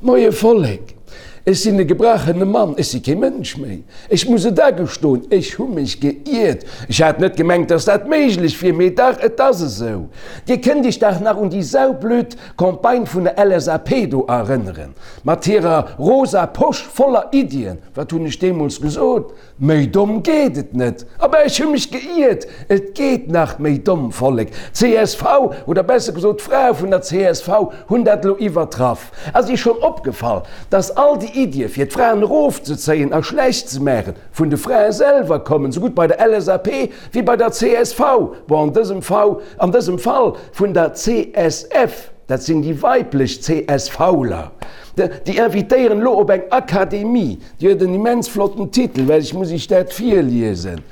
Moie Vollek, ech sinn e gebrachene Mann, ech si kee Mënsch méi. Ech muss et agestoen, ech hu mech geiert. Ech hat net gemengt, dass dat méiglech wier, mee dach, et ass esou. Dir kënnt Iech dach nach un déi saublöd Campagne vun der LSAP do erënneren, mat hirer rosa Posch voller Iddien. Wat hunn ech deemools gesot? Méi domm geet et net! Abä ech hu mech geiert, et geet nach méi domm, Vollek! Csv, oder besser gesot d'Frae vun der csv hunn dat elo iwwertraff. Ass Iech schonn opgefall, dass all déi Iddie fir d'Fraen erofzezéien a schlecht ze maachen, vun de Frae selwer kommen, sougutt bei der LSAP wéi bei der csv, bon an dësem Fall, an dësem Fall vun der CSF, dat sinn déi weiblech CSVler, déi invitéieren elo op eng Akademie. Déi huet en immens flotten Titel, well ech muss Iech dat virliesen,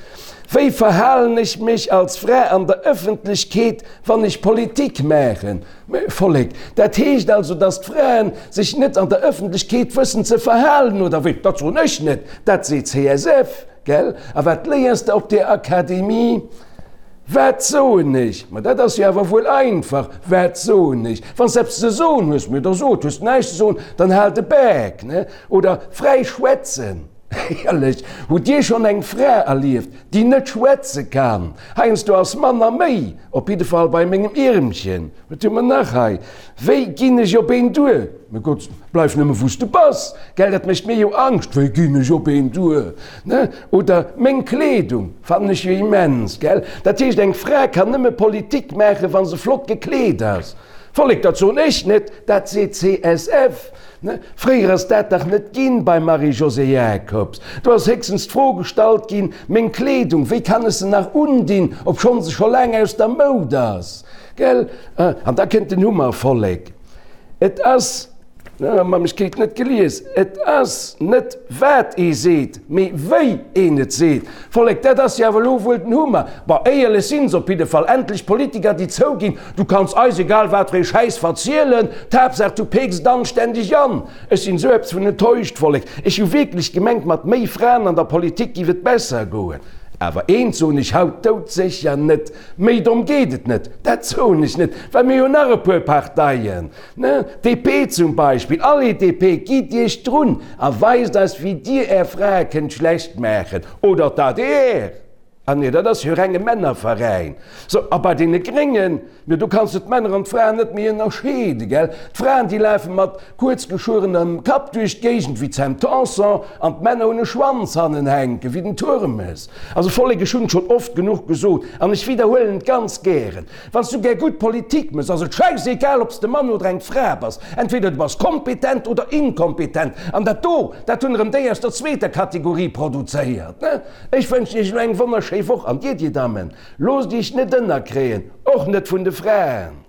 Wéi verhalen ech mech als Fra an der Ëffentlechkeet, wann ech Politik maachen? Mä Vollek, dat heescht also, datt d'Fraen sech net an der Ëffentlechkeet wëssen ze verhalen, oder wéi? Dat soen ech net, dat seet CSF. Gell? A wat léiers de op där Akademie? Wat soen ech? Ma dat ass jo awer wuel einfach, Wat soen ech? Wann s de eppes ze soen hues, mir da sot, hues de näischt ze soen, dann hal de Bak, ne? Oder fräi schwätzen. Éierlech, hutt Dir schonn eng Fra erlieft, déi net schwätze kann? Heiansdo ass manner méi, op jidde Fall bei mengem Iermchen. Wat hu mer nach hei? Wéi ginn ech op een duer? Mä Gott, bleif nëmme wou s de bass, gell, dat mécht mir jo Angscht. Wéi ginn ech op een duer? Ne? Oder meng Kleedung fannen ech jo immens, gell? Dat heescht, eng Fra kann nëmme Politik maachen, wa se flott gekleet ass. Vollek, dat soen ech net, dat seet CSF. Ne? Fréier ass dat dach net ginn beim Marie-Josée Jacobs. Do ass héchstens d'Fro gestallt ginn, Meng Kleedung, wéi kann ech se nach undinn, obschonn se scho laang aus der Moud ass? Gell? An da kënnt den Hummer, Vollek. Et ass, mam ech kritt net gelies, et ass net wat ee seet, mee wéi een et seet. Vollek, dat ass jo awer elo wuel den Hummer. Bon, éierlech sinn se op jidde Fall. Endlech Politiker, déi zouginn, Du kanns eis egal wat fir ee Schäiss verzielen, d'Haaptsaach du peeks et anständeg an. Ech sinn esou eppes vun enttäuscht, Vollek. Ech hu wierklech gemengt, mat méi Fraen an der Politik giff et besser goen. Awer eent soen ech haut doudsécher net, Méi domm geet et net. Dat soen ech net, well mir hu nach e puer Parteien, ne? DP zum Beispill. Allez DP, gitt Iech drun a weist eis, wéi Dir Är Frae kënnt schlecht maachen. Oder d'ADR. Ah nee, dat ass jo renge Männerveräin. So, a bei deene Gréngen, jo do kanns de d'Männer an d'Fraen net méi ënnerscheeden, gell? D'Fraen, déi lafe mat kuerz geschuerenem Kapp duerch d'Géigend wéi d'Sam Tanson an d'Männer hunn e Schwanz hannen hänken wéi den Turmes. Also Vollek, ech hunn et schonn oft genuch gesot an ech widderhuelen et ganz gären, Wann s du gär gutt Politik mëss, ass et schäissegal, ob s de Mann oder eng Fra bass. Entweder du bass kompetent oder inkompetent. An dat do, dat hunn erëm déi aus der zweeter Kategorie produzéiert, ne? Ech wënschen iech elo eng wonnerschéi Woch an dir, dir Dammen, loosst iech net ënnerkréien, och net vun de Fraen.